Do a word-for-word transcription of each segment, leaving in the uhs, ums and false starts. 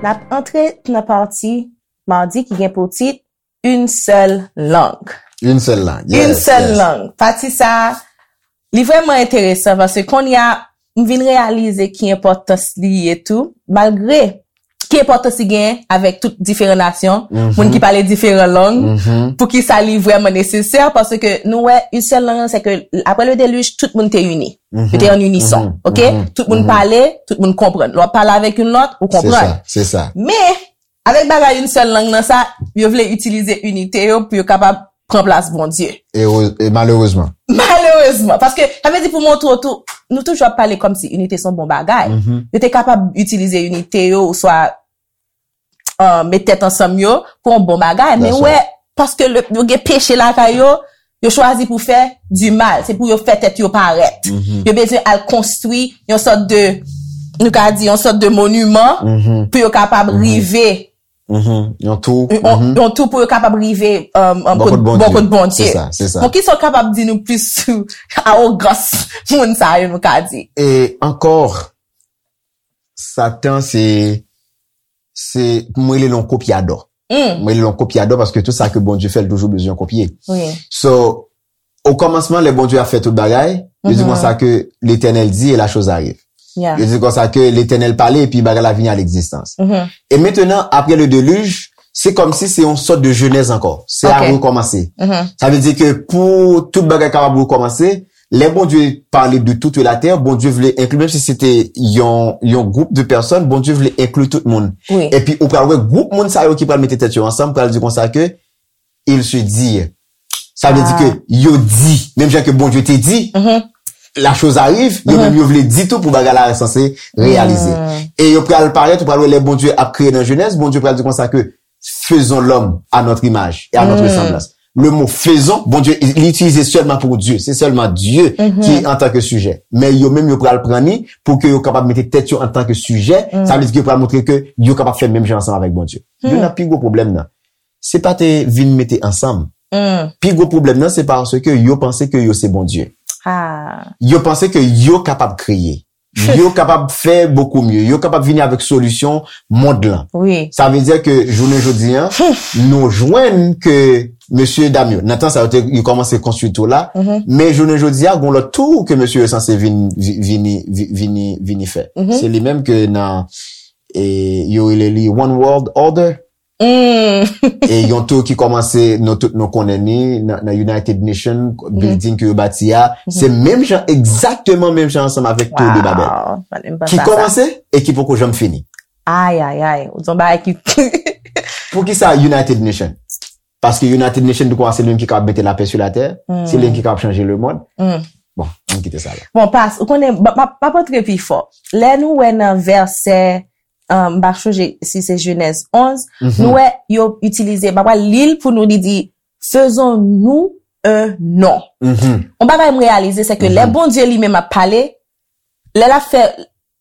N ap antre nan pati madi ki gen pou tit Une seule langue. Une seule langue. Une Yes, seule yes. Langue. Pati sa, li vrèman enteresan paske kounye a, m vin reyalize ki enpòtans li ye tou, malgre ki enpòtans li gen avèk tout diferan nasyon, Mhm. Moun ki pale diferan lang, Mhm. pou ki sa li vrèman nesesè, paske nou wè, une seule langue, se ke apre le déluge, tout moun te ini. Mhm. Yo te an inison, Mhm. ok? Mhm. Tout moun Mhm. Pale, tout moun konprann. Lè w ap pale avèk youn lòt, ou Se konprann. Sa, se sa. Men, avèk bagay une seule langue nan sa, yo vle itilize inite yo pou yo kapab pran plas Bondye. E, e malerezman. Malerezman. Paske, sa vle di pou montre w tou, nou toujou ap pale kòmsi inite se yon bon bagay. Mhm. Yo te kapab itilize inite yo, oswa uh, met tèt ansanm yo pou yon bon bagay. Men That's wè, right. Paske le, yo gen peche lakay yo, yo chwazi pou fè du mal. Se pou yo fè tèt yo parèt. Mhm. Yo bezwen al konstwi yon sòt de, nou ka di, yon sòt de moniman Mhm. pou yo kapab rive. Mhm. Yon tou. Yon, Mhm. yon tou pou yo kapab rive um, um, Bò kot Bondye. Bò kot Bondye. Se sa, se sa. Bon, ki sa w kapab di nou plis sou awogans moun sa yo, nou ka di? E ankò, Satan, se, se, mwen rele l yon kopyadò. Mm, Mwen rele l yon kopyadò paske tout sa ke Bondye fè, l toujou bezwen kopye. wi. So, o kòmansman, lè Bondye a fè tout bagay, yo di Mhm. konsa ke Letènèl di e la chose arrive. Yeah. Yo di konsa ke Letènèl pale epi bagay la vini a legzistans. Mhm. E mentenan, apre le deluge, se kòmsi se yon sòt de jenèz ankò. Se a Ok. Rekòmanse. Mhm. Sa vle di ke pou tout bagay kapab rekòmanse, lè Bondye pale de toute la terre, Bondye vle enkli, menm si se te yon, yon gwoup de pèsòn, Bondye vle enkli tout moun. Wi. Epi ou pral wè gwoup moun sa yo ki pral mete tèt yo ansanm, pral di konsa ke il se dit. Sa vle di Ah. Ke yo di, menm jan ke Bondye te di, Mhm. la chose arrive, yo Mhm. Menm yo vle di tou pou bagay la sanse reyalize. Mm. E yo pral parèt, ou pral wè lè Bondye ap kreye nan Jenèz, Bondye pral di konsa ke faisons l'homme à notre image et à notre Mm. ressemblance. Le mot faisons, Bondye li itilize sèlman pou Dye, se sèlman Dye Mhm. ki antan ke sijè. Men yo menm yo pral pran ni pou ke yo kapab mete tèt yo antan ke sijè, Mm. Sa vle di ke yo pral montre ke yo kapab fè menm jan ansanm avèk Bondye. Hmm. Youn nan pi gwo pwoblèm nan, se pa te vin mete ansanm. Mm, Pi gwo pwoblèm nan, se paske yo panse ke yo se Bondye. ah, Yo panse ke yo kapab kreye. Yo kapab fè bokou mye. Yo kapab vini avèk solisyon mond lan. wi. Sa vle di ke jounen jodi an, nou jwenn ke mesye dam yo, nan tan sa yo te yo kòmanse konstwi tou la, Mhm. men jounen jodi a, gon lòt tou ke mesye yo sanse vin, vi- vini, vi- vini, vini fè. Mhm. Se li menm ke nan, e, yo rele li One World Order. Mm. E yon tou ki kòmanse, nou tout nou konnen ni, nan, nan United Nation, building ke yo bati a, se menm jan, egzakteman menm jan ansanm avèk Tour de Babel. Wow, pa menm panse Ki a sa. Kòmanse e ki poko janm fini. Ay, ay, ay. Ou di yon bagay ki Pou ki sa United Nation? Paske United Nation, nou kwè se li menm ki kapab mete lapè sou latè, Hmm. se li menm ki kapab chanje le mond. Mm. Bon, ann kite sa la. Bon, pas, ou konnen, m ap m ap antre pi fò. Lè nou wè nan vèsè, um, m pa chonje si se Jenèz onz, Mhm. nou wè yo itilize, m ap li l pou nou, li di, faisons-nous un nom. Mhm. Yon bagay m reyalize, se ke lè Mhm. Bondye li menm ap pale, lè l ap fè,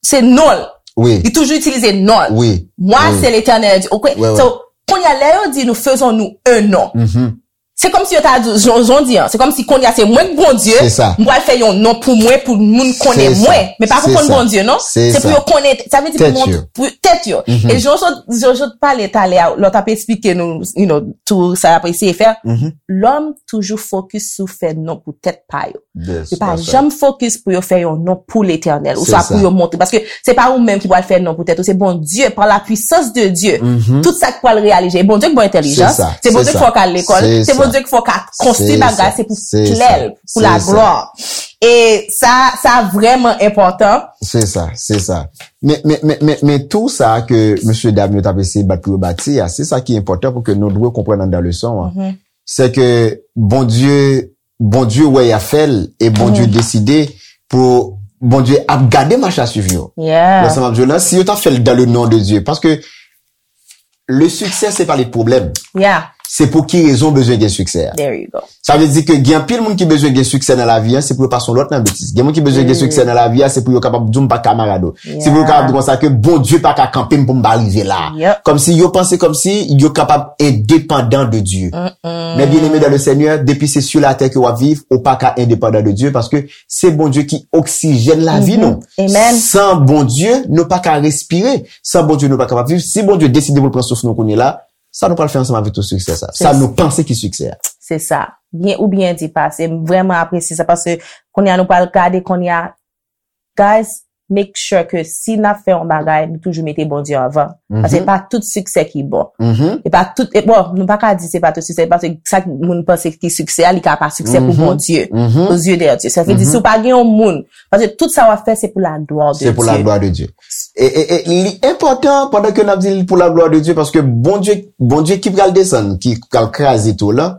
se non l. Wi. Li toujou itilize non l. Wi. Mwen, Wi. Se Letènèl di. Okwe? Wi, wi. So, kounye a, lè yo di nou faisons-nous un nom. Mhm. Se kòmsi yo ta di, jan, jan w di an, se kòmsi kounye a se mwen k Bondye, Se sa. M pral fè yon non pou mwen, pou moun konnen Se sa. Mwen. Men pa pou Se konn sa. Bondye, non? Se Se pou sa. Yo konnen, sa vle di pou Tèt mont- yo. Pou tèt yo. Mhm. E jan w sot, jan w sot pale talè a, lè w t ap eksplike nou, you know, tou sa y ap eseye fè, Mhm. lòm toujou fokis sou fè non pou tèt pa yo. Yes, Yo pa that's right. Janm fokis pou yo fè yon non pou Letènèl, Se oswa sa. Pou yo montre. Paske se pa ou menm ki pral fè non pou tèt ou, se Bondye, par la puissance de Dieu. Mhm. Tout sa k pral reyalize. E Bondye k ba w entèlijans, Se sa, se Bondye se k fè w sa. K al lekòl, Se se sa. Bondye k fè w K konstwi Se bagay, sa. Se pou Se glè sa. L, pou la Se sa. Glwa. E sa, sa vrèman enpòtan. Se sa, se sa. Men, men, men, men, men tou sa ke mesye dam yo t ap eseye bat pou yo bati a, se sa ki enpòtan pou ke nou dwe konprann anndan leson an. Mhm. Se ke Bondye, Bondye wè y ap fè l e Bondye Mhm. Deside pou Bondye ap gade mach a swiv yo. Yeah. Nan sans m ap di w la, si yo t ap fè l dans le nom de Dieu, paske le succès se pa le problème. Yeah. Se pou ki rezon w bezwen gen siksè a. There you go. Sa vle di ke gen anpil moun ki bezwen gen siksè nan lavi a, se pou yo pa se yon lòt nan betiz. Gen moun ki bezwen gen siksè nan lavi a, se pou yo kapab di w m pa kamarad ou. Se pou yo kapab di konsa ke Bondye pa ka kanpe m pou m pa rive la. Yep. Kòmsi yo panse kòmsi yo kapab endepandan de Dye. Men bien aimé dans le Seigneur, depi se sou latè ke w ap viv, ou pa ka endepandan de Dye paske se Bondye ki oksijèn lavi nou. Amen. San Bondye, nou pa ka respire. San Bondye, nou pa kapab viv. Si Bondye deside pou l pran souf nou kounye la, sa nou pral fè ansanm avèk tout siksè sa? Sa nou panse ki siksè a? Se sa. Byen ou byen di pase. M vrèman apresye sa paske kounye a nou pral gade kounye a. Guys, make sure ke si n ap fè yon bagay, nou toujou mete Bondye anvan. Paske se pa tout siksè ki bon. E pa tout, e bon, nou pa ka di se pa tout siksè, paske sa moun panse ki siksè a, li ka pa siksè pou Bondye. Aux yeux de Dieu. Sa vle di, si w pa gen yon moun, paske tout sa w ap fè, se pou la glwa de Se pou la Dye. Glwa de Dye. E, e, e li enpòtan pandan ke n ap di l pou la glwa de Dye, paske Bondye, Bondye ki pral desann, ki pral kraze tou la,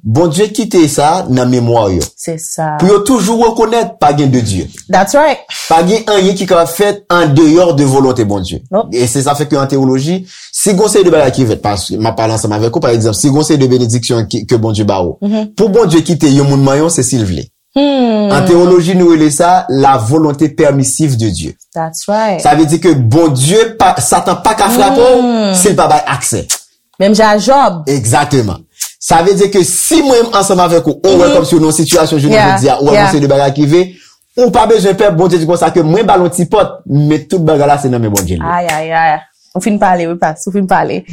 Bondye kite sa nan memwa yo. Se sa. Pou yo toujou rekonèt pa gen de Dye. That's right. Pa gen anyen ki kapab fèt an deyò de volonte Bondye. Nope. E se sa fè ke an teyoloji, si gon seri de bagay ki fèt, paske m ap pale ansanm avèk ou, pa egzanp, si gon seri de benediksyon ki, ke Bondye ba ou, pou Bondye kite yon moun manyen w, se si l vle. An teyoloji, nou rele sa la volonte permissive de Dieu. That's right. Sa vle di ke Bondye, pa, Satan pa ka frape w si l pa bay aksè. Menm jan a Jòb. Egzakteman. Sa vle di ke si mwen ansanm avèk ou, ou wè kòmsi ou nan yon sitiyasyon jounen Yeah, jodi a, ou wè yeah. Bondye de bagay ki ve, ou pa bezwen pè, Bondye di konsa ke mwen ba l yon ti pòt, men tout bagay la se nan men Bondye li. Ay, ay, ay. Ou fin pale, wi, pas. Ou fin pale.